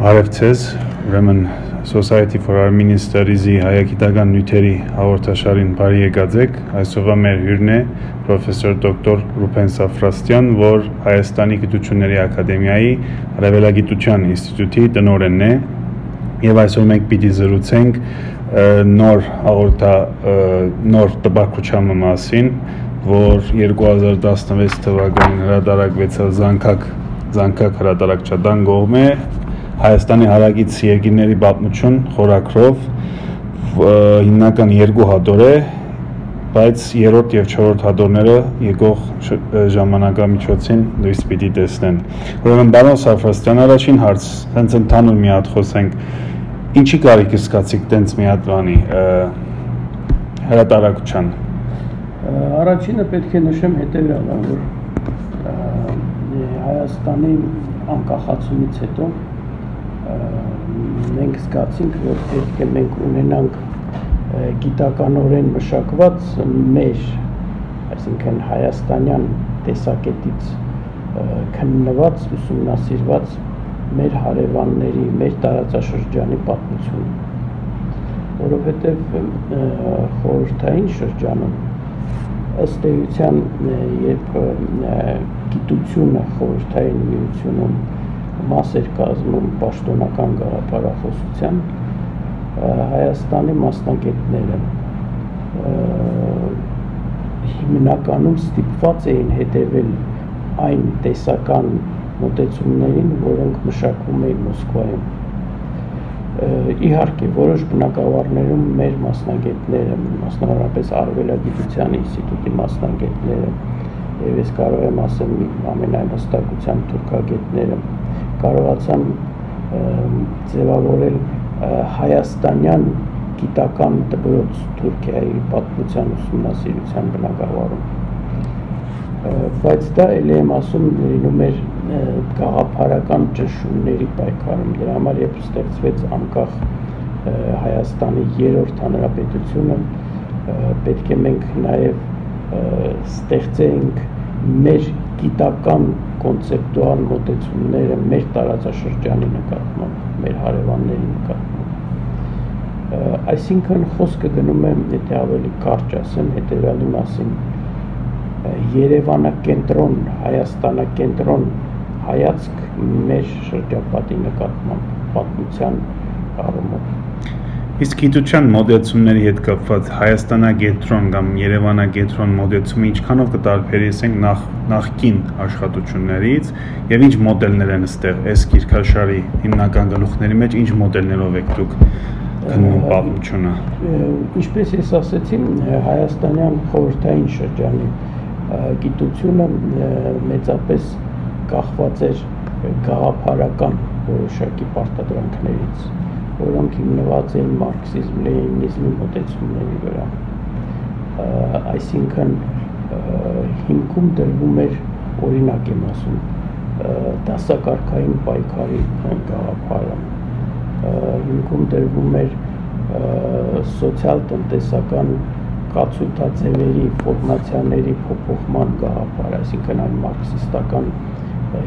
Արևցես, ուրեմն Society for Armenian Studies-ի հայագիտական նյութերի հաղորդաշարին բարի եկած եք։ Այսօրվա մեր հյուրն է պրոֆեսոր դոկտոր Ռուփեն Սաֆրաստյան, որ Հայաստանի Գիտությունների Ակադեմիայի Արևելագիտության ինստիտուտի տնօրենն է, եւ այսօր մենք պիտի զրուցենք նոր տպագրության մասին, որ 2016 թվականին հրատարակվեցավ Զանգակ հրատարակչական կողմէ Հայաստանի հարակից երկրների պատմություն խորագրով հիմնական երկու հատոր է, բայց երրորդ եւ չորրորդ հատորները եկող ժամանակամիջոցին լույս պիտի տեսնեն։ Ուրեմն պարոն Սաֆրաստյան, առաջին հարց, հենց ընդհանուր մի հատ խոսենք, ինչի կարիք զգացիք տենց մի հատ բանի հրատարակության։ Առաջինը պետք է նշեմ հետևյալը, որ Հայաստանի անկախացումից հետո մենք զգացինք, որ պետք է մենք ունենանք գիտականորեն մշակված մեր, այսինքն հայաստանյան տեսակետից քննված, ուսումնասիրված մեր հարևանների, մեր տարածաշրջանի պատմությունը, որովհետև խորհրդային շրջանում ըստ էության, երբ գիտությունը խորհրդային միությունում մաս էր կազմում պաշտոնական գաղափարախոսության, Հայաստանի մասնագետները հիմնականում ստիպված էին հետևել այն տեսական մոտեցումներին, որոնք մշակվում էին Մոսկվայում։ Իհարկե, որոշ բնակավարներում մեր մասնագետները, մասնավորապես Արևելագիտության ինստիտուտի մասնագետները, եւ ես կարող եմ ասել ամենայն հստակությամբ թուրքագետները, կարողացան ձևավորել հայաստանյան գիտական դպրոց Թուրքիայի պատմության ուսումնասիրության բնագավառում, բայց դա էլի եմ ասում լինում էր գաղափարական ճնշումների պայքարում, դրա համար երբ ստեղծվեց անկախ Հայաստանի երրորդ հանրապետությունը, պետք է մենք նաև ստեղծենք մեր գիտական կոնցեպտուալ մոտեցումները մեր տարածաշրջանի նկատմամբ, մեր հարևանների նկատմամբ։ Այսինքն խոսքը գնում է, եթե ավելի կարճ ասեմ, հետևյալի մասին, Երևանակենտրոն, Հայաստանակենտրոն հայացք մեր շրջապատի նկատմամբ, պատմության առումով։ Իսկ գիտության մոդեցումների հետ կապված Հայաստանագետրոն կամ Երևանագետրոն մոդեցումը ինչքանով կտարբերեցնենք նախկին աշխատություններից եւ ինչ մոդելներ են ստեղ այս գիրքաշարի հիմնական գլուխների մեջ ինչ մոդելներով եք դուք գնում պատմությունը։ Ինչպես ես ասացի, հայաստանյան խորհրդային շրջանի գիտությունը մեծապես կախված էր գաղափարական որոշակի պարտադրանքներից, որոնք հիմնված էին մարքսիզմ, լենինիզմի մոտեցումների վրա, այսինքն հիմքում դրվում էր, օրինակ եմ ասում, դասակարգային պայքարի գաղափարը, հիմքում դրվում էր սոցիալ-տնտեսական կացույցաձևերի, ֆորմացիաների փոփոխման գաղափար, այսինքն այն մարքսիստական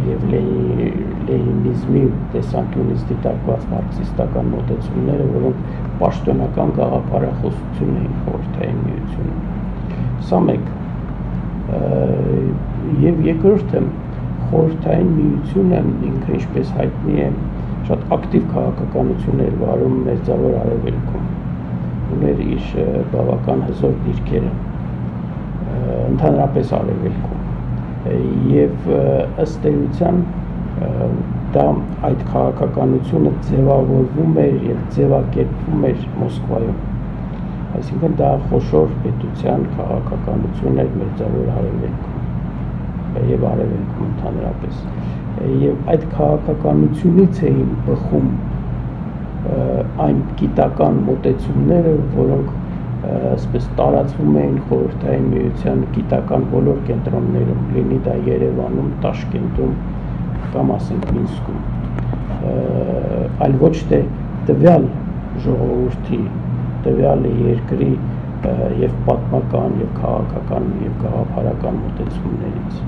եւ լենինիզմի տեսանկյունից դիտարկված մարքսիստական մոտեցումները, որոնք պաշտոնական գաղափարախոսություն էին խորհրդային միությունում։ Սա մեկ։ Եվ երկրորդը, խորհրդային միությունը ինքը ինչպես հայտնի է, շատ ակտիվ քաղաքականություն էր վարում Մերձավոր Արևելքում, ուներ իր բավական հզոր դիրքերը, ընդհանրապես Արևելքում։ Եվ ըստ էության դա այդ քաղաքականությունը ձևավորվում էր եւ ձևակերպվում էր Մոսկվայում, այսինքն դա խոշոր պետության քաղաքականություն էր Մերձավոր Արևելքում եւ Արևելքում ընդհանրապես, եւ այդ քաղաքականությունից էին բխում այն գիտական մոտեցումները, որոնք այսպես տարածվում էին խորհրդային միության գիտական բոլոր կենտրոններում, լինի դա Երևանում, Տաշկենտում կամ ասենք Մինսկում, այլ ոչ թե տվյալ ժողովրդի, տվյալ երկրի եւ պատմական եւ քաղաքական եւ գաղափարական մոտեցումներից։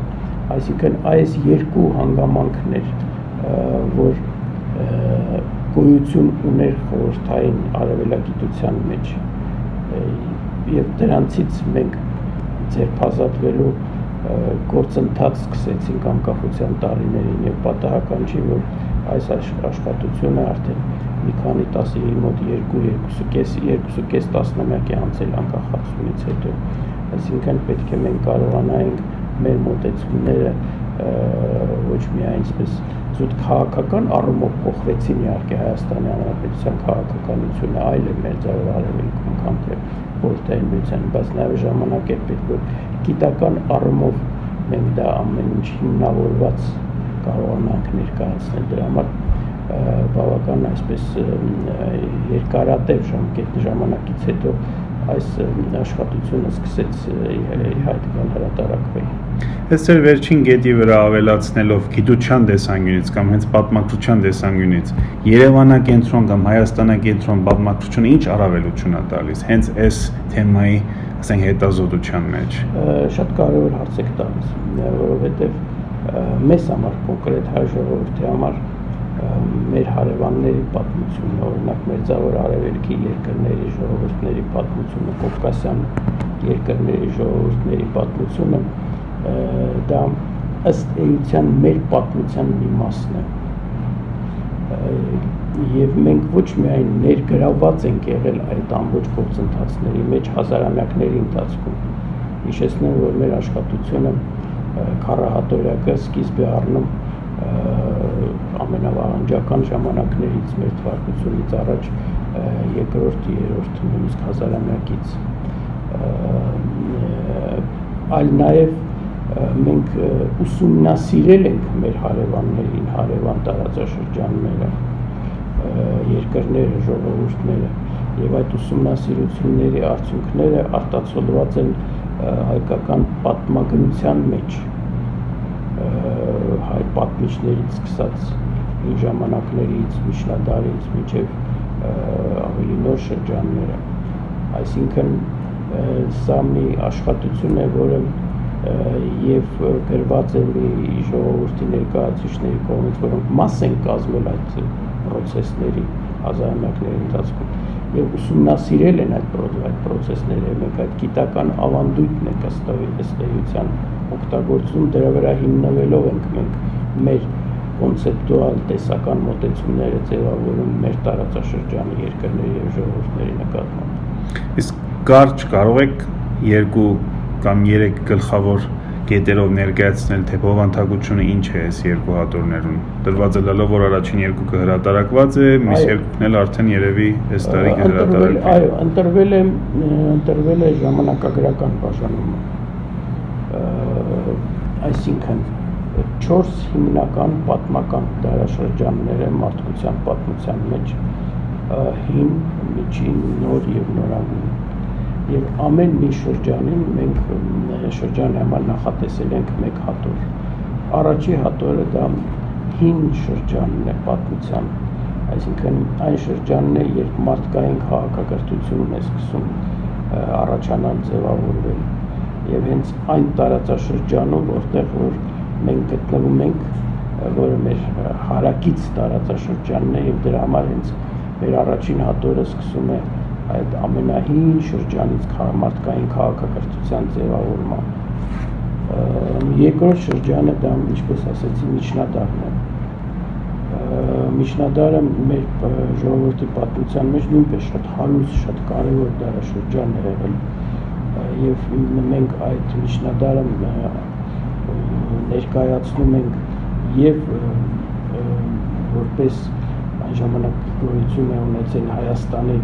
Այսինքն այս երկու հանգամանքներ, որ գոյություն ուներ խորհրդային արևելագիտության մեջ եւ դրանցից մենք ձերբազատվելու գործընթաց սկսեցինք անկախության տարիներին եւ պատահական չի որ այս աշխատությունը արդեն մի քանի մոտ 2.5 տասնամյակ է անցել անկախացումից հետո այսինքն պետք է մենք կարողանայինք մեր մոտեցումները ոչ միայն այսպես զուտ քաղաքական առումով փոխվեցին իհարկե Հայաստանի Հանրապետության քաղաքականությունը այլ է մերձավոր արևելքում քան թե խորհրդային միության, բայց նաև ժամանակ է պետք որ գիտական առումով մենք դա ամեն ինչ հիմնավորված կարողանանք ներկայացնել դրա համար բավական այսպես երկարատև ժամանակից հետո այս աշխատությունը սկսեց իհայտ գալ հրատարակվել։ Այս ձեր վերջին գետի վրա ավելացնելով գիտության տեսանկյունից կամ հենց պատմագրության տեսանկյունից Երևանակենտրոն կամ Հայաստանակենտրոն պատմագրությունը ինչ առավելություն է տալիս հենց այս թեմայի, ասենք, հետազոտության մեջ։ Շատ կարևոր հարց եք տալիս, որովհետև մեզ համար կոնկրետ հայ ժողովրդի համար մեր հարևանների պատմությունը, օրինակ Մերձավոր Արևելքի երկրների ժողովուրդների պատմությունը, Կովկասյան երկրների ժողովուրդների պատմությունը դա ըստ էության մեր պատմության մի մասն է եւ մենք ոչ միայն ներգրավված ենք եղել այդ ամբողջ գործընթացների մեջ հազարամյակների ընթացքում հիշեցնեմ որ մեր աշխատությունը քառահատորյակը սկիզբ է առնում ամենավաղանջական ժամանակներից մեր թվարկությունից առաջ երկրորդ, երրորդ նույնիսկ հազարամյակից այլ նաև մենք ուսումնասիրել ենք մեր հարևաններին, հարևան տարածաշրջանները, երկրները, ժողովուրդները եւ այդ ուսումնասիրությունների արդյունքները արտացոլված են հայկական պատմագրության մեջ հայ պատմիչներից սկսած այն ժամանակներից, միջնադարից մինչև ավելի նոր շրջանները այսինքն սա մի աշխատություն է որը եւ գրված է մի ժողովրդի ներկայացուցիչների կողմից որոնք մաս են կազմել այդ process-ների հազարամյակների ընթացքում եւ ուսումնասիրել են այդ process-ները մենք այդ գիտական ավանդույթն է ըստ էության օգտագործում դրա վրա հիմնվելով ենք մենք մեր կոնցեպտուալ տեսական մոտեցումները ձևավորում մեր տարածաշրջանի երկրների եւ ժողովուրդների նկատմամբ իսկ կարճ կարող եք 2 կամ 3 գլխավոր կետերով ներկայացնել թե բովանդակությունը ինչ է այս երկու հատորներում դրված է լալով որ առաջին երկուքը հրատարակված է մյուս երկուքն էլ արդեն երևի այս տարի կհրատարակվի այո ընտրվել է ժամանակագրական բաժանումը այսինքն 4 հիմնական պատմական դարաշրջաններ են մարդկության պատմության մեջ հին, միջին, նոր եւ նորագույն եւ ամեն մի շրջանին մենք շրջանի համար նախատեսել ենք մեկ հատոր առաջի հատորը դա հին շրջանն է պատմության այսինքն այն շրջանն է երբ մարդկային քաղաքակրթությունն է սկսում առաջանալ ձևավորվել եւ հենց այն տարածաշրջանում որտեղ որ մենք գտնվում ենք որը մեր հարակից տարածաշրջանն է եւ դրա համար հենց մեր առաջին հատորը սկսում է այդ ամենահին շրջանից մարդկային քաղաքակրթության ձևավորման երկրորդ շրջանը դա ինչպես ասեցի միջնադարն է միջնադարը մեր ժողովրդի պատմության մեջ նույնպես շատ հարուստ շատ կարևոր դարաշրջան է եղել եւ մենք այդ միջնադարը ներկայացնում ենք եւ որպես այն ժամանակ գոյություն է ունեցել Հայաստանի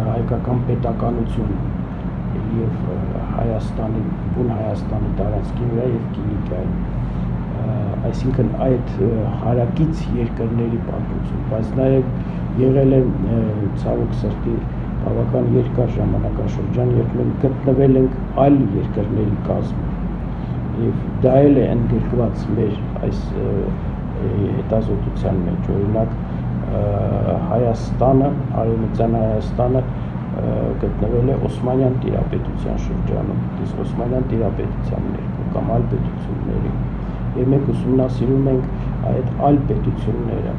հայկական պետականություն եւ Հայաստանի բուն Հայաստանի տարածքի վրա եւ Կիլիկիայի այսինքն այդ հարակից երկրների պատմություն բայց նաեւ եղել է ցավոք սրտի բավական երկար ժամանակաշրջան երբ մենք գտնվել ենք այլ երկրների կազմում եւ դա էլ է ընդգրկված մեր այս հետազոտության մեջ օրինակ Հայաստանը արևմտյան Հայաստանը գտնվել է Օսմանյան տիրապետության շրջանում իսկ Օսմանյան տիրապետության ներքո կամ այլ պետությունների եւ մենք ուսումնասիրում ենք այդ այլ պետությունները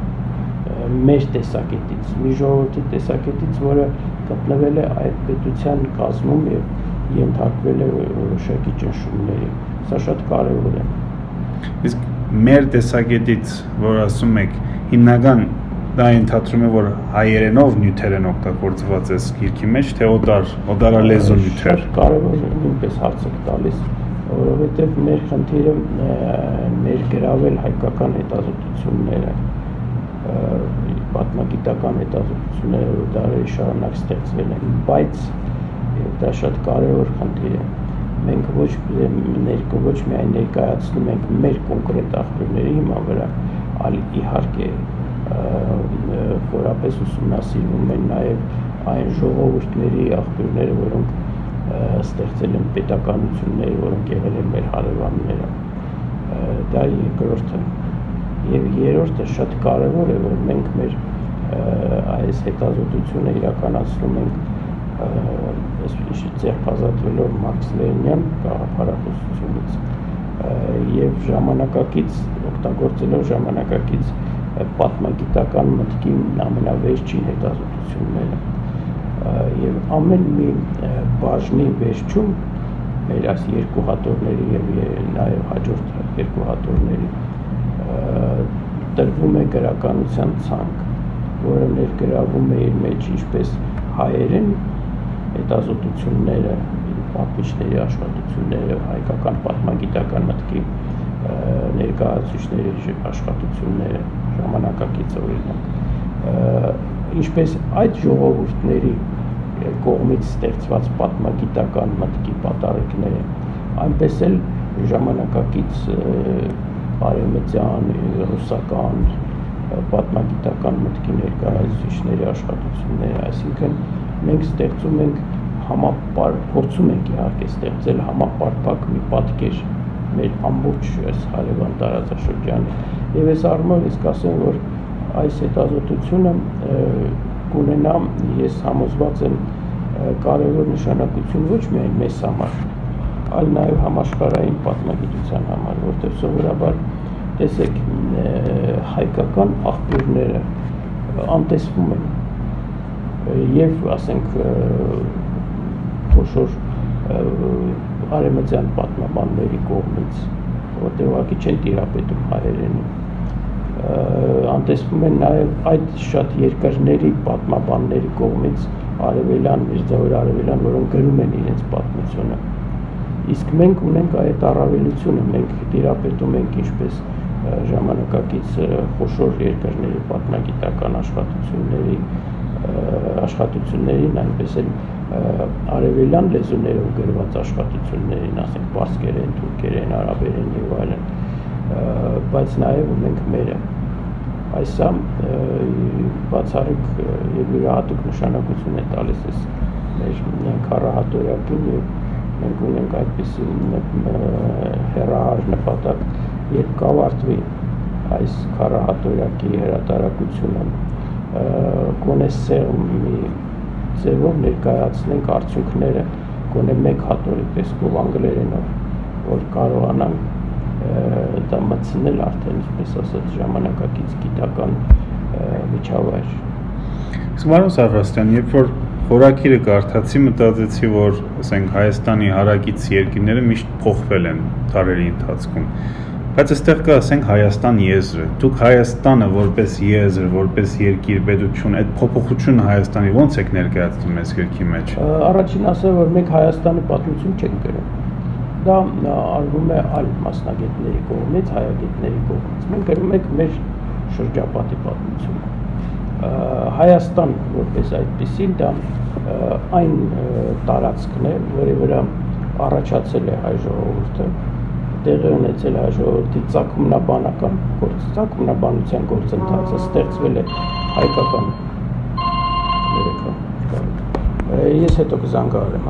մեր տեսակետից, մի ժողովրդի տեսակետից, որը գտնվել է այդ պետության կազմում եւ ենթարկվել է որոշակի ճնշումների։ Սա շատ կարևոր է։ Իսկ մեր տեսակետից, որ ասում եք, հիմնական դա ընդհանրում է, որ հայերենով նյութեր են օգտագործված այս գիրքի մեջ, թե օդարալեզու նյութեր։ Շատ կարևոր նույնպես հարց եք տալիս, որովհետև մեր խնդիրը ներգրավել հայկական հետազոտությունները, պատմագիտական հետազոտությունները դարերի շարունակ ստեղծվել են, բայց դա շատ կարևոր խնդիր է։ Մենք ոչ միայն ներկայացնում ենք մեր կոնկրետ աղբյուրների հիման վրա, այլ իհարկե խորապես ուսումնասիրվում են նաև այն ժողովուրդների աղբյուրները, որոնք ստեղծել են պետականությունները, որոնք եղել են մեր հարևանները։ Դա երկրորդը։ Եվ երրորդը շատ կարևոր է, որ մենք մեր այս հետազոտությունը իրականացնում ենք ձեռքազատվելով մարքսլենյան գաղափարախոսությունից եւ ժամանակակից օգտագործելով ժամանակակից պատմագիտական մտքի ամենավերջին հետազոտությունները եւ ամեն մի բաժնի վերջում մեր այս երկու հատորների եւ նաեւ հաջորդ երկու հատորների տրվում է գրականության ցանկ, որը ներգրավում է իր մեջ ինչպես հայերեն հետազոտությունները, պատմիչների աշխատությունները, հայկական պատմագիտական մտքի ներկայացուցիչների աշխատությունները, ժամանակակից օրինակ, ինչպես այդ ժողովուրդների կողմից ստեղծված պատմագիտական մտքի պատարեկները, այնպես էլ ժամանակակից արևմտյան, ռուսական, պատմագիտական մտքի ներկայացուցիչների աշխատությունները, այսինքն մենք ստեղծում ենք փորձում ենք իհարկե ստեղծել համապարփակ մի պատկեր մեր ամբողջ այս հարևան տարածաշրջանի եւ այս առումով ես կասեմ, որ այս հետազոտությունը կունենա, ես համոզված եմ, կարևոր նշանակություն ոչ միայն մեզ համար, այլ նաեւ համաշխարհային պատմագիտության համար, որտեղ սովորաբար տեսեք հայկական աղբյուրները անտեսվում են եւ ասենք խոշոր արևմտյան պատմաբանների կողմից, որտեղ ուղղակի չեն տիրապետում հայերենին, անտեսվում են նաեւ այդ շատ երկրների պատմաբանների կողմից արևելյան, մերձավոր արևելյան, որոնք գրում են իրենց պատմությունը։ Իսկ մենք ունենք այդ առավելությունը, մենք տիրապետում ենք ինչպես ժամանակակից խոշոր երկրների պատմագիտական աշխատություններին, այնպես էլ արևելյան լեզուներով գրված աշխատություններին, ասենք պարսկերեն, թուրքերեն, արաբերեն եւ այլն, բայց նաեւ ունենք մերը։ Այսա բացառիկ եւ յուրահատուկ նշանակություն է տալիս այս մեր քառահատորյակին եւ մենք ունենք այդպիսի հեռահար նպատակ, երբ կավարտվի այս քառահատորյակի հրատարակությունը, գոնե սեղմի ձևով ներկայացնենք արդյունքները, գոնե մեկ հատորի տեսքով անգլերենով, որ կարողանանք դա մտցնել արդեն, ինչպես ասած, ժամանակակից գիտական միջավայր։ Պարոն Սարվաստյան, երբ որ խորագիրը կարդացի, մտածեցի, որ ասենք Հայաստանի հարակից երկրները միշտ փոխվել են դարերի ընթացքում, բայց այստեղ կա ասենք Հայաստան եզրը։ Դուք Հայաստանը որպես եզր, որպես երկիր, պետություն, այդ փոփոխությունը Հայաստանի ո՞նց եք ներկայացնում այս գրքի մեջ։ Առաջին ասեմ, որ մենք Հայաստանի պատմություն չենք գրում։ Դա արվում է այլ մասնագետների կողմից, հայագետների կողմից։ Մենք գրում ենք մեր շրջապատի պատմությունը։ Հայաստան որպես այդպեսին դա այն տարածքն է, որի վրա առաջացել է հայ ժողովուրդը, տեղի ունեցել հայ ժողովրդի ծագումնաբանական ծագումնաբանության գործընթացը, ստեղծվել է հայկական ես հետո կզանգահարեմ,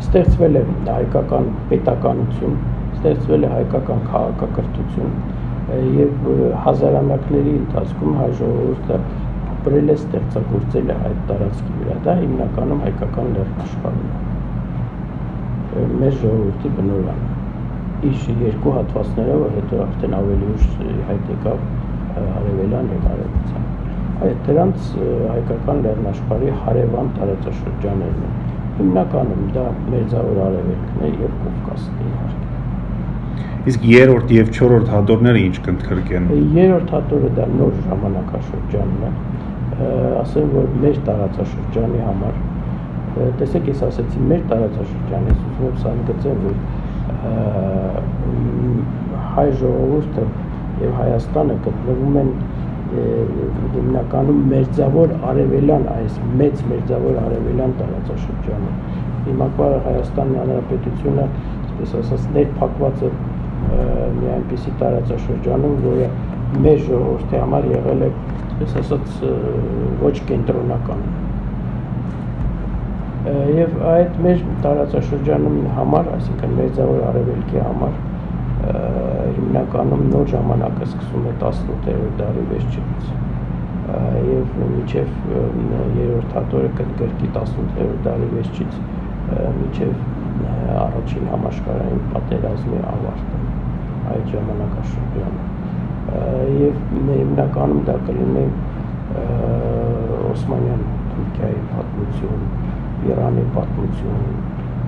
ստեղծվել է հայկական պետականություն, ստեղծվել է հայկական քաղաքակրթություն եւ հազարամյակների ընթացքում հայ ժողովուրդը ապրել է, ստեղծագործել է այդ տարածքի վրա, դա հիմնականում հայկական լեռնաշխարհում է, մեր ժողովրդի բնօրրանը, իր երկու հատվածներով, հետո արդեն ավելի ուշ հայտ եկավ արևելյան եւ արևմտյան։ Այդ դրանց հայկական լեռնաշխարհի հարևան տարածաշրջաններն են։ Հիմնականում դա Մերձավոր Արևելքն է եւ Կովկասն է իհարկե։ Իսկ երրորդ եւ չորրորդ հատորները ինչ կընդգրկեն։ Երրորդ հատորը դա նոր ժամանակաշրջանն է, ասեմ որ մեր տարածաշրջանի համար, տեսեք ես ասեցի մեր տարածաշրջանը, ես ուզում եմ սահմգծեմ, որ հայ ժողովուրդը եւ Հայաստանը գտնվում են հիմնականում մերձավոր արևելյան, այս մեծ մերձավոր արևելյան տարածաշրջանում։ Հիմա Հայաստանի Հանրապետությունը, այսպես ասած, ներփակված է մի այնպիսի տարածաշրջանում, որը մեր ժողովրդի համար եղել է, այսպես ասած, ոչ կենտրոնական։ Եվ այդ մեր տարածաշրջանում համար, այսինքն Մերձավոր Արևելքի համար, հիմնականում նոր ժամանակը սկսում է 18-րդ դարի վերջից եւ մինչեւ երրորդ հատորը կընդգրկի 18-րդ դարի վերջից մինչեւ առաջին համաշխարհային պատերազմի ավարտը այդ ժամանակաշրջանը եւ հիմնականում դա կլինի Օսմանյան Թուրքիայի պատմություն, Իրանի պատմություն,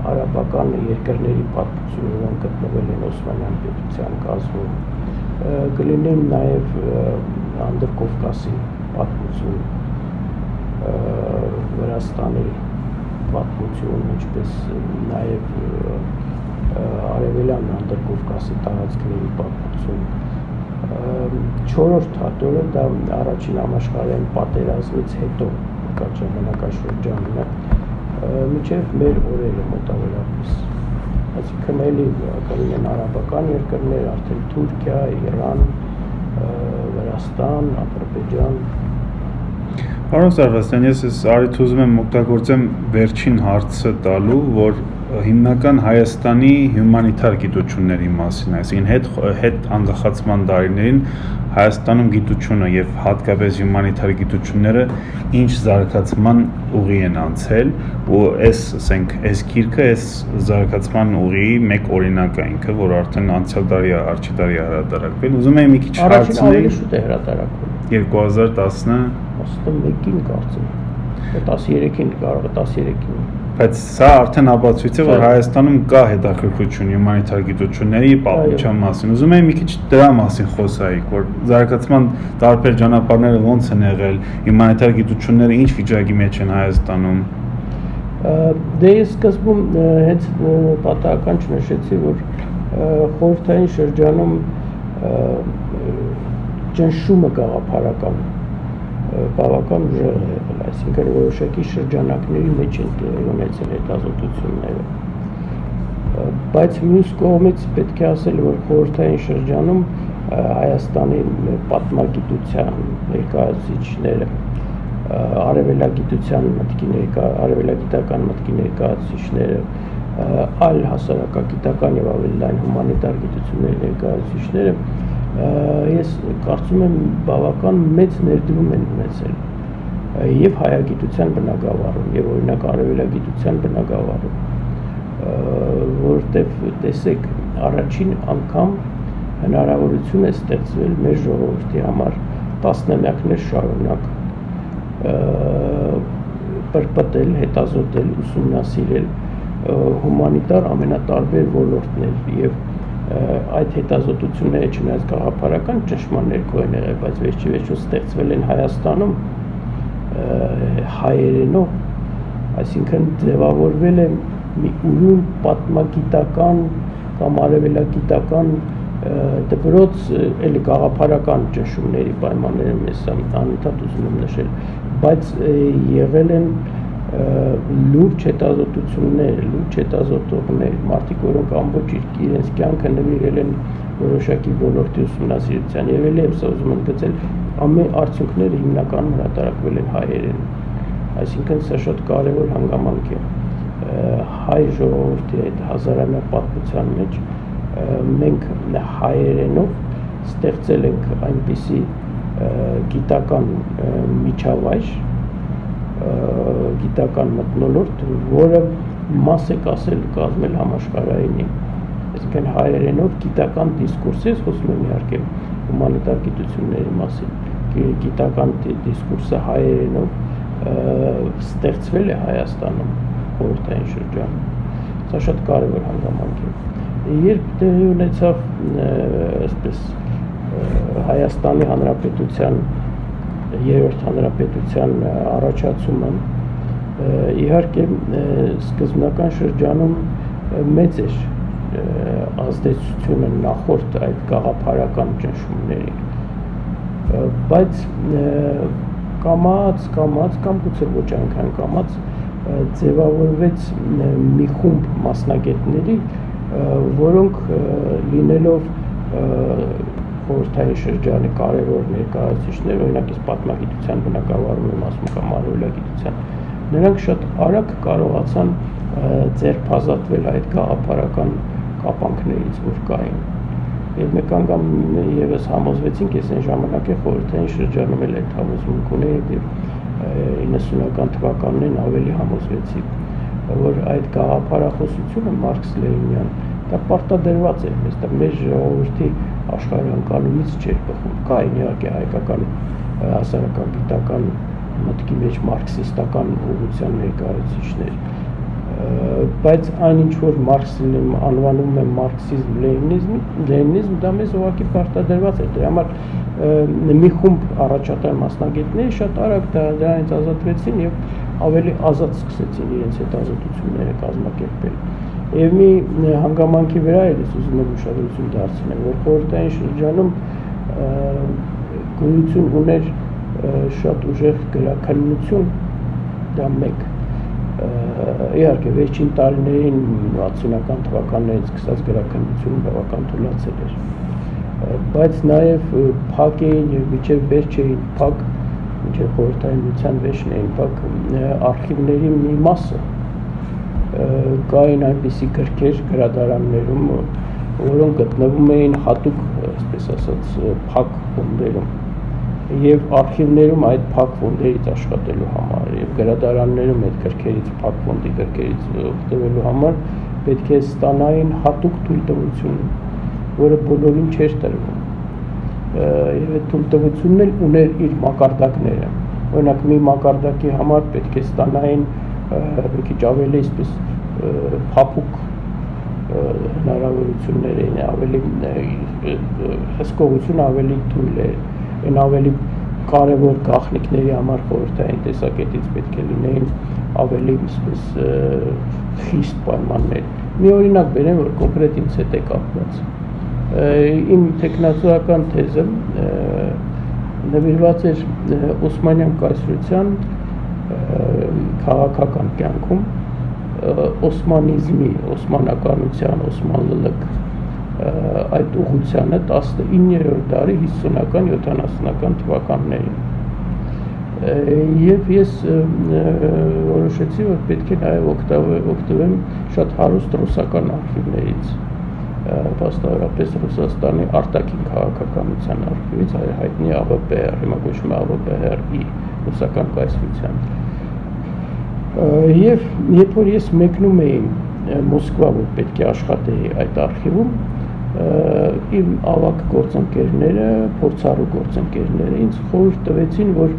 արաբական երկրների պատմություն, որոնք գտնվել են Օսմանյան պետության կազմում, կլինի նաև Անդրկովկասի պատմություն, Վրաստանի պատմություն, ինչպես նաև արևելյան Անդրկովկասի տարածքների պատմություն։ Չորրորդ հատորը դա առաջին համաշխարհային պատերազմից հետո կար ժամանակաշրջանն է, մինչև մեր օրերը մոտավորապես, այսինքն էլի կլինեն արաբական երկրներ, արդեն Թուրքիա, Իրան, Վրաստան, Ադրբեջան։ Պարոն Սարվաստյան, ես արիթ ուզում եմ օգտագործեմ վերջին հարցը տալու, որ հիմնական Հայաստանի հյումանիտար գիտությունների մասին, այսինքն հետ անկախացման տարիներին Հայաստանում գիտությունը եւ հատկապես հյումանիտար գիտությունները ինչ զարգացման ուղի են անցել ու այս գիրքը այս զարգացման ուղիի մեկ օրինակ է ինքը, որ արդեն անցյալ տարի առաջի տարի հրատարակվել։ Ուզում եմ մի քիչ հարցնել, շուտ է հրատարակվել 2011-ին կարծեմ, 13-ին կարող է 13-ին։ Բայց սա արդեն ապացույց է, որ Հայաստանում կա հետաքրքրություն հյումանիտար գիտությունների պատմության մասին։ Ուզում եմ մի քիչ դրա մասին խոսայիք, որ զարգացման տարբեր ճանապարհները ոնց են եղել, հյումանիտար գիտությունները ինչ վիճակի մեջ են Հայաստանում։ Դե ես սկզբում հենց պատահական չնշեցի, որ խորհրդային շրջանում ճնշումը գաղափարական բավական ուժեղ է եղել, այսինքն որոշակի շրջանակների մեջ են տեղի ունեցել հետազոտությունները, բայց մյուս կողմից պետք է ասել, որ խորհրդային շրջանում Հայաստանի պատմագիտության ներկայացուցիչները, արևելագիտական մտքի ներկայացուցիչները, այլ հասարակագիտական եւ ավելի լայն հումանիտար գիտությունների ներկայացուցիչները ես կարծում եմ բավական մեծ ներդրում են ունեցել եւ հայագիտության բնագավառում եւ օրինակ արևելագիտության բնագավառում, որտեղ տեսեք առաջին անգամ հնարավորություն է ստեղծվել մեր ժողովրդի համար տասնամյակներ շարունակ պրպտել, հետազոտել, ուսումնասիրել հումանիտար ամենատարբեր ոլորտներ եւ այդ հետազոտությունները չնայած գաղափարական ճնշման ներքո են եղել, բայց վերջիվերջո ստեղծվել են Հայաստանում հայերենով, այսինքն ձևավորվել է մի ուրույն պատմագիտական կամ արևելագիտական դպրոց, էլի գաղափարական ճնշումների պայմաններում ես անընդհատ ուզում եմ նշել, բայց եղել են լուրջ հետազոտություններ, լուրջ հետազոտողներ, մարդիկ, որոնք ամբողջ իրենց կյանքը նվիրել են որոշակի ոլորտի ուսումնասիրության եւ ելի եմ սա ուզում եմ գծել ամեն արդյունքները հիմնականում հրատարակվել են հայերեն, այսինքն սա շատ կարեւոր հանգամանք է հայ ժողովրդի այդ հազարամյա պատմության մեջ մենք հայերենով ստեղծել ենք այնպիսի գիտական միջավայր, գիտական մթնոլորտ, որը մաս է կազմել համաշխարհայինի, այսինքն հայերենով գիտական դիսկուրս, ես խոսում եմ իհարկե հումանիտար գիտությունների մասին, գիտական դիսկուրսը հայերենով ստեղծվել է Հայաստանում խորհրդային շրջանում։ Սա շատ կարևոր հանգամանք է։ Երբ տեղի ունեցավ այսպես Հայաստանի Հանրապետության երրորդ հանրապետության առաջացումը, իհարկե սկզբնական շրջանում մեծ էր ազդեցությունը նախորդ այդ գաղափարական ճնշումների, բայց կամաց կամ գուցե ոչ այնքան կամաց ձևավորվեց մի խումբ մասնագետների, որոնք լինելով խորհրդային շրջանի կարևոր ներկայացուցիչներ, օրինակ ես պատմագիտության բնագավառում եմ ասում կամ արևելագիտության, նրանք շատ արագ կարողացան ձերբազատվել այդ գաղափարական կապանքներից, որ կային։ Եվ մեկ անգամ ևս համոզվեցինք, ես այն ժամանակ խորհրդային շրջանում էլ այդ համոզմունք ունեի, եւ 90-ական թվականներին ավելի համոզվեցի, որ այդ գաղափարախոսությունը Մարքս-Լենինյան դա պարտադրված է մեզ, դա մեր ժողովրդի աշխարհանկալումից չէր բխում։ Կային իհարկե հայկական հասարակագիտական մտքի մեջ մարքսիստական ուղղության ներկայացուցիչներ, բայց այն ինչ որ Մարքսին անվանում է մարքսիզմ, լենինիզմ, դա մեզ ուղղակի պարտադրված է։ Դրա համար մի խումբ առաջատար մասնագետներ շատ արագ դրանից ազատվեցին եւ ավելի ազատ սկսեցին իրենց այդ ազատությունները կազմակերպել։ Եվ մի հանգամանքի վրա էլ ես ուզում եմ ուշադրություն դարձնել, որ խորհրդային շրջանում գոյություն ուներ շատ ուժեղ գրաքննություն, դա մեկ։ Իհարկե վերջին տարիներին 60-ական թվականներից սկսած գրաքննությունը բավական թուլացել էր, բայց նաև փակ էին եւ մինչեւ վերջ էին փակ, մինչեւ խորհրդային միության վերջն էին փակ արխիվների մի մասը, կային այնպիսի գրքեր գրադարաններում, որոնք գտնվում էին հատուկ, այսպես ասած, փակ ֆոնդերում եւ արխիվներում այդ փակ ֆոնդերից աշխատելու համար եւ գրադարաններում այդ գրքերից փակ ֆոնդի գրքերից օգտվելու համար պետք է ստանային հատուկ թույլտվություն, որը բոլորին չէր տրվում։ Եվ այդ թույլտվությունն էլ ուներ իր մակարդակները։ Օրինակ մի մակարդակի համար պետք է ստանային մի քիչ ավելի այսպես փափուկ հնարավորություններ էին, ավելի հսկողություն ավելի թույլ էր, այն ավելի կարևոր գաղտնիքների համար խորհրդային տեսակետից պետք է լինեին ավելի այսպես խիստ պայմաններ։ Մի օրինակ բերեմ, որ կոնկրետ ինձ հետ է կապված։ Իմ տեխնացուական թեզը նվիրված էր Օսմանյան կայսրության քաղաքական կյանքում օսմանիզմի, օսմանականության, օսման լլկ այդ ուղղությանը 19-րդ դարի 50-ական, 70-ական թվականներին։ Եվ ես որոշեցի, որ պետք է նաև օգտվեմ շատ հարուստ ռուսական արխիվներից, վաստավորապես Ռուսաստանի արտաքին քաղաքականության արխիվից, հայտնի ԱՎՊ-ը, հիմա կոչվում է ԱՎՊ-ի ռուսական կայսրության։ Եվ երբ որ ես մեկնում էի Մոսկվա, որ պետք է աշխատեի այդ արխիվում, իմ ավագ գործընկերները, փորձառու գործընկերները ինձ խորհուրդ տվեցին, որ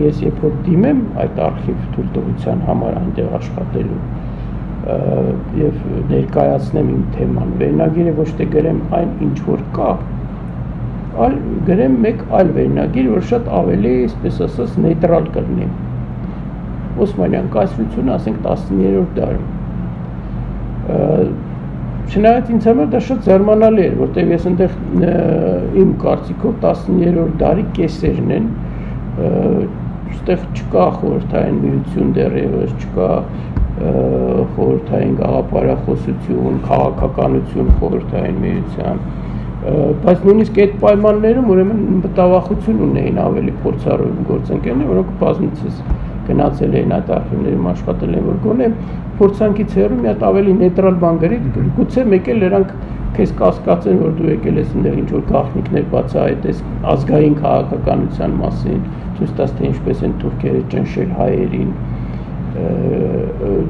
ես երբ որ դիմեմ այդ արխիվ թույլտվության համար այնտեղ աշխատելու եւ ներկայացնեմ իմ թեման, վերնագիրը ոչ թե գրեմ այն ինչ որ կա, այլ գրեմ մեկ այլ վերնագիր, որ շատ ավելի, այսպես ասած, նեյտրալ կլինի։ Օսմանյան կայսրությունը, ասենք 19-րդ դարում։ Չնայած ինձ համար դա շատ զարմանալի էր, որտեղ ես այնտեղ իմ կարծիքով 19-րդ դարի կեսերն են, այստեղ չկա խորհրդային միություն դեռևս, չկա խորհրդային գաղափարախոսություն, քաղաքականություն խորհրդային միության, բայց նույնիսկ այդ պայմաններում ուրեմն մտավախություն ունեին ավելի փորձառու գործընկերներ, որոնք բազմիցս գնացել էին այդ արխիվներում աշխատել են, որ գոնե փորձանքից հեռու մի հատ ավելի նեյտրալ բան գրի, գուցե մեկ էլ նրանք քեզ կասկածեն, որ դու եկել ես այնտեղ ինչ որ գաղտնիքներ բացահայտես ազգային քաղաքականության մասին, ցույց տաս թե ինչպես են թուրքերը ճնշել հայերին,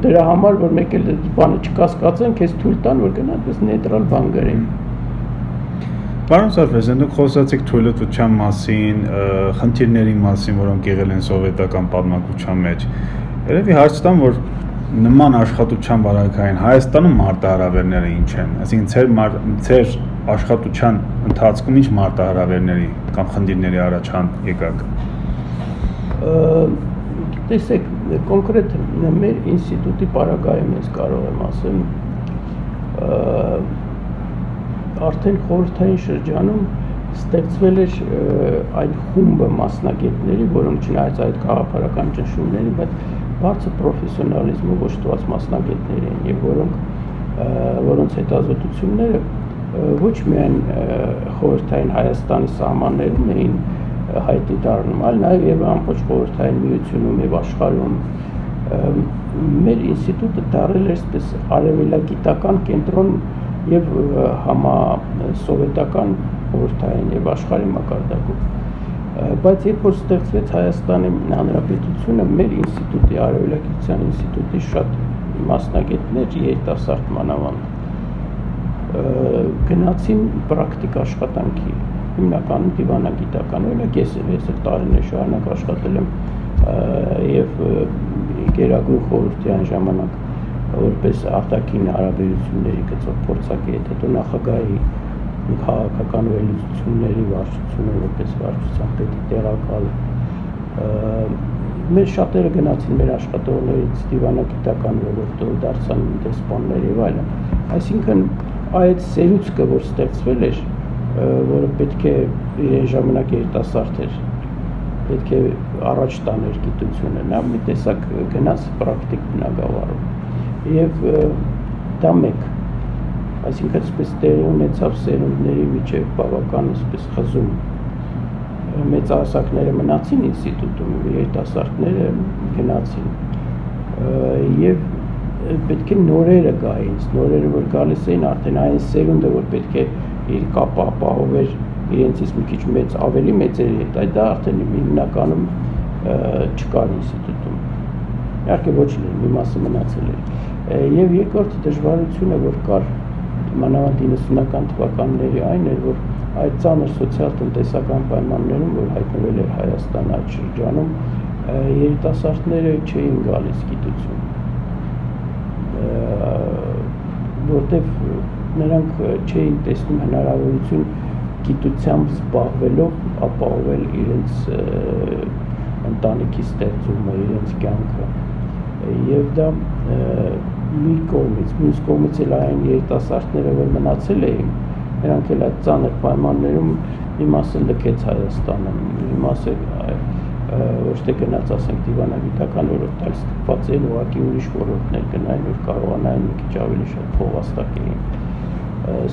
դրա համար որ մեկ էլ բանը չկասկածեն, քեզ թույլ տան, որ գնա այդպես նեյտրալ բան գրեն։ Պարոն Սարփեսյան, դուք խոսացիք թույլտվության մասին, խնդիրների մասին, որոնք եղել են սովետական պատմակության մեջ։ Երևի հարց տամ, որ նման աշխատության վարակային Հայաստանում մարտահրավերները ինչ են, այսինքն ձեր աշխատության ընթացքում ինչ մարտահրավերների կամ խնդիրների առաջան եկաք։ Տեսեք, կոնկրետ մեր ինստիտուտի պարագայում ես կարող եմ ասել, արդեն խորհրդային շրջանում ստեղծվել էր այն խումբը մասնագետների, որոնք չնայած այդ գաղափարական ճնշումների, բայց բարձր պրոֆեսիոնալիզմով օժտված մասնագետներ են եւ որոնց հետազոտությունները ոչ միայն խորհրդային Հայաստանի սահմաններում էին հայտնի դառնում, այլ նաեւ եւ ամբողջ խորհրդային միությունում եւ աշխարհում մեր ինստիտուտը դարձել էր այսպես արևելագիտական կենտրոն եւ համասովետական խորհրդային եւ աշխարհի մակարդակում, բայց երբ որ ստեղծվեց Հայաստանի Հանրապետությունը, մեր ինստիտուտի արևելագիտության ինստիտուտի շատ մասնագետներ երիտասարդ մանավանդ գնացին պրակտիկ աշխատանքի, հիմնականում դիվանագիտական, օրինակ ես տարիներ շարունակ աշխատել եմ եւ Գերագույն խորհրդի այն ժամանակ որպես արտաքին հարաբերությունների գծով փորձագետ, հետո նախագահի քաղաքական վերլուծությունների վարչությունը որպես վարչության պետի տեղակալ, մեր շատերը գնացին մեր աշխատողներից դիվանագիտական ոլորտով դարձան դեսպաններ եւ այլն, այսինքն այդ սերուցքը, որ ստեղծվել էր, որը պետք է իրեն ժամանակ երիտասարդ էր, պետք է առաջ տաներ գիտությունը, նա մի տեսակ գնաց պրակտիկ բնագավառում եւ դա մեկ, այսինքն այսպես տեղի ունեցավ սերունդների միջև բավական այսպես խզում, մեծահասակները մնացին ինստիտուտում, երիտասարդները գնացին եւ պետք է նորերը գային, նորերը որ գալիս էին արդեն այն սերունդը, որ պետք է իր կապը ապահովեր իրենցից մի քիչ մեծ, ավելի մեծերի հետ, այդ դա արդեն հիմնականում չկար ինստիտուտում, իհարկե ոչ լինի, մի մասը մնացել էր եւ երկրորդ դժվարությունը, որ կար մանավանդ 90-ական թվականների այն էր, որ այդ ծանր սոցիալ-տնտեսական պայմաններում, որ հայտնվել էր Հայաստան այդ շրջանում, երիտասարդները չէին գալիս գիտություն, որտեվ նրանք չէին տեսնում հնարավորություն գիտությամբ զբաղվելով ապահովել իրենց ընտանիքի ստեղծումը, իրենց կյանքը եւ դա մի կողմից, մյուս կողմից էլ այն երիտասարդները, որ մնացել էին, նրանք էլ այդ ծանր պայմաններում մի մասը լքեց Հայաստանը, մի մասը ոչ թե գնաց, ասենք, դիվանագիտական ոլորտ, այլ ստիպված էին ուղղակի ուրիշ ոլորտներ գնային, որ կարողանային մի քիչ ավելի շատ փող վաստակեին։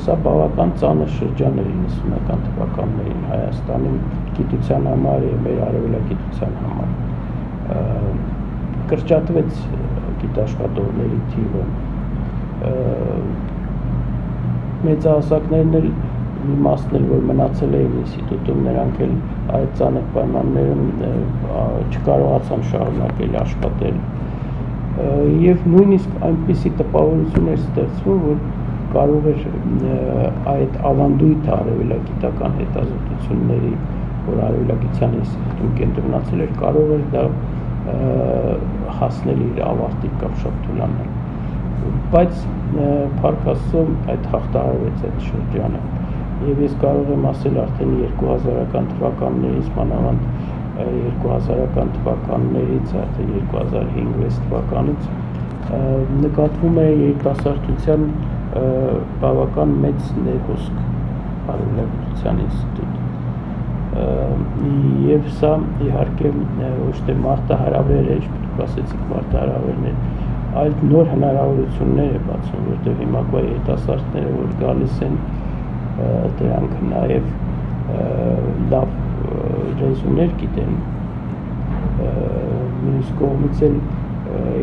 Սա բավական ծանր շրջան էր 90-ական թվականներին Հայաստանի գիտության համար եւ մեր արևելագիտության համար։ Կրճատվեց գիտաշխատողների թիվը, մեծահասակներն էլ մի մասն էլ որ մնացել էին ինստիտուտում, նրանք էլ այդ ծանր պայմաններում չկարողացան շարունակել աշխատել եւ նույնիսկ այնպիսի տպավորություն էր ստեղծվում, որ կարող էր այդ ավանդույթ արևելագիտական հետազոտությունների, որ արևելագիտության ինստիտուտում կենտրոնացել էր, կարող էր դա հասնել իր ավարտի կամ շատ թուլանալ, բայց փառք Աստծո այդ հաղթահարվեց այդ շրջանը եւ ես կարող եմ ասել արդեն 2000-ական թվականներից, մանավանդ 2000-ական թվականներից, արդեն 2005-6 թվականից նկատվում է երիտասարդության բավական մեծ ներհոսք արևելագիտության ինստիտուտ եւ սա իհարկե ոչ թե մարտահրավեր է, դուք ասեցիք մարտահրավերներ, այլ նոր հնարավորություններ է բացում, որտեղ հիմա երիտասարդները որ գալիս են դրանք նաեւ լավ ռեզուներ գիտեն, մյուս կողմից էլ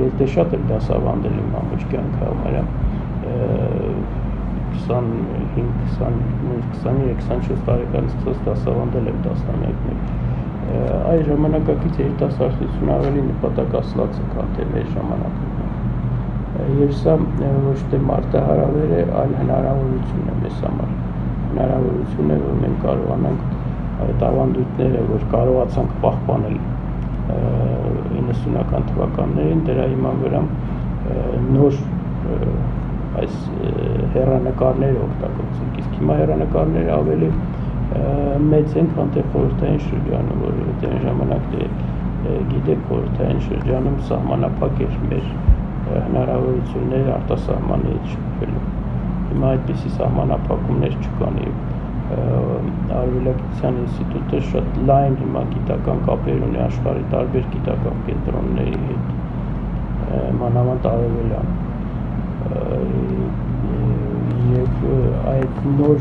ես դե շատ եմ դասավանդել եմ ամբողջ կյանքը համարյա 23-24 տարեկանից սկսած դասավանդել եմ տասնամյակներ, այս ժամանակակից երիտասարդությունը ավելի նպատակասլաց է, քան թե մեր ժամանակում եւ սա ոչ թե մարտահրավեր է, այլ հնարավորություն է մեզ համար, հնարավորություն է, որ մենք կարողանանք այդ ավանդույթները, որ կարողացանք պահպանել 90-ական թվականներին, դրա հիման վրա նոր այս հեռանկարները օգտագործենք, իսկ հիմա հեռանկարները ավելի մեծ են, քան թե խորհրդային շրջանում, որովհետև այն ժամանակ գիտեք, խորհրդային շրջանում սահմանափակ էր մեր հնարավորությունները արտասահմանից շփվելու։ Հիմա այդպիսի սահմանափակումներ չկան եւ Արևելագիտության ինստիտուտը շատ լայն հիմա գիտական կապեր ունի աշխարհի տարբեր գիտական կենտրոնների հետ, մանավանդ արևելյան, եւ այդ նոր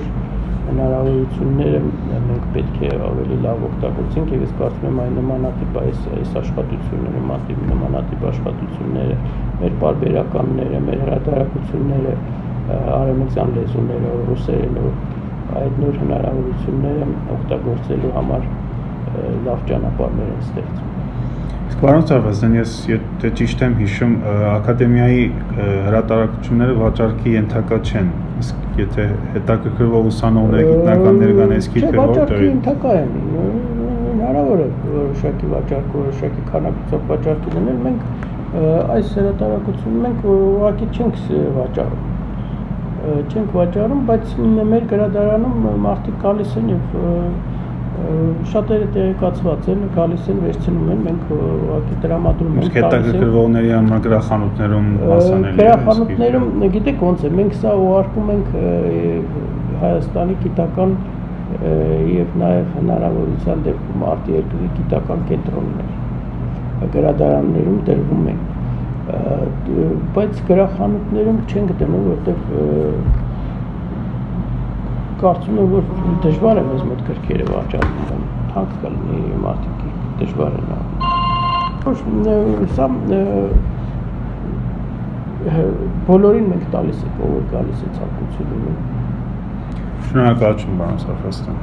հնարավորությունները մենք պետք է ավելի լավ օգտագործենք եւ ես կարծում եմ այն նմանատիպ այս աշխատությունները, նմանատիպ աշխատությունները, մեր պարբերականները, մեր հրատարակությունները, արևմտյան լեզուներով, ռուսերենով, այդ նոր հնարավորությունները օգտագործելու համար լավ ճանապարհներ են ստեղծում։ Իսկ պարոն Սարվազյան, ես եթե ճիշտ եմ հիշում, ակադեմիայի հրատարակությունները վաճառքի ենթակա չեն, իսկ եթե հետաքրքրվող ուսանողները, գիտնականներ կան, իսկ թե վաճառքի ենթակա են, հնարավոր է որոշակի վաճառք, որոշակի քանակությամբ վաճառքի դնել, մենք այս հրատարակությունը մենք ուղղակի չենք վաճառում, բայց մեր գրադարանում մարդիկ գալիս են եւ շատերը տեղեկացված են, գալիս են, վերցնում են, մենք ուղղակի տրամադրում ենք։ Հետաքրքրվողների համար գրախանութներում հասանելի է։ Գրախանութներում, գիտեք ոնց է, մենք սա ուղարկում ենք Հայաստանի գիտական եւ նաեւ հնարավորության դեպքում արտերկրի գիտական կենտրոններ, գրադարաններում տրվում են, բայց գրախանութներում չենք դնում, որտեղ կարծում եմ, որ դժվար է մեզ մոտ գրքերը վաճառել, թանկ կլինի, մարդիկ դժվար են անում։ Սա բոլորին մենք տալիս ենք, ով գալիս է ցանկություն ունի։ Շնորհակալություն, պարոն Սարվազյան։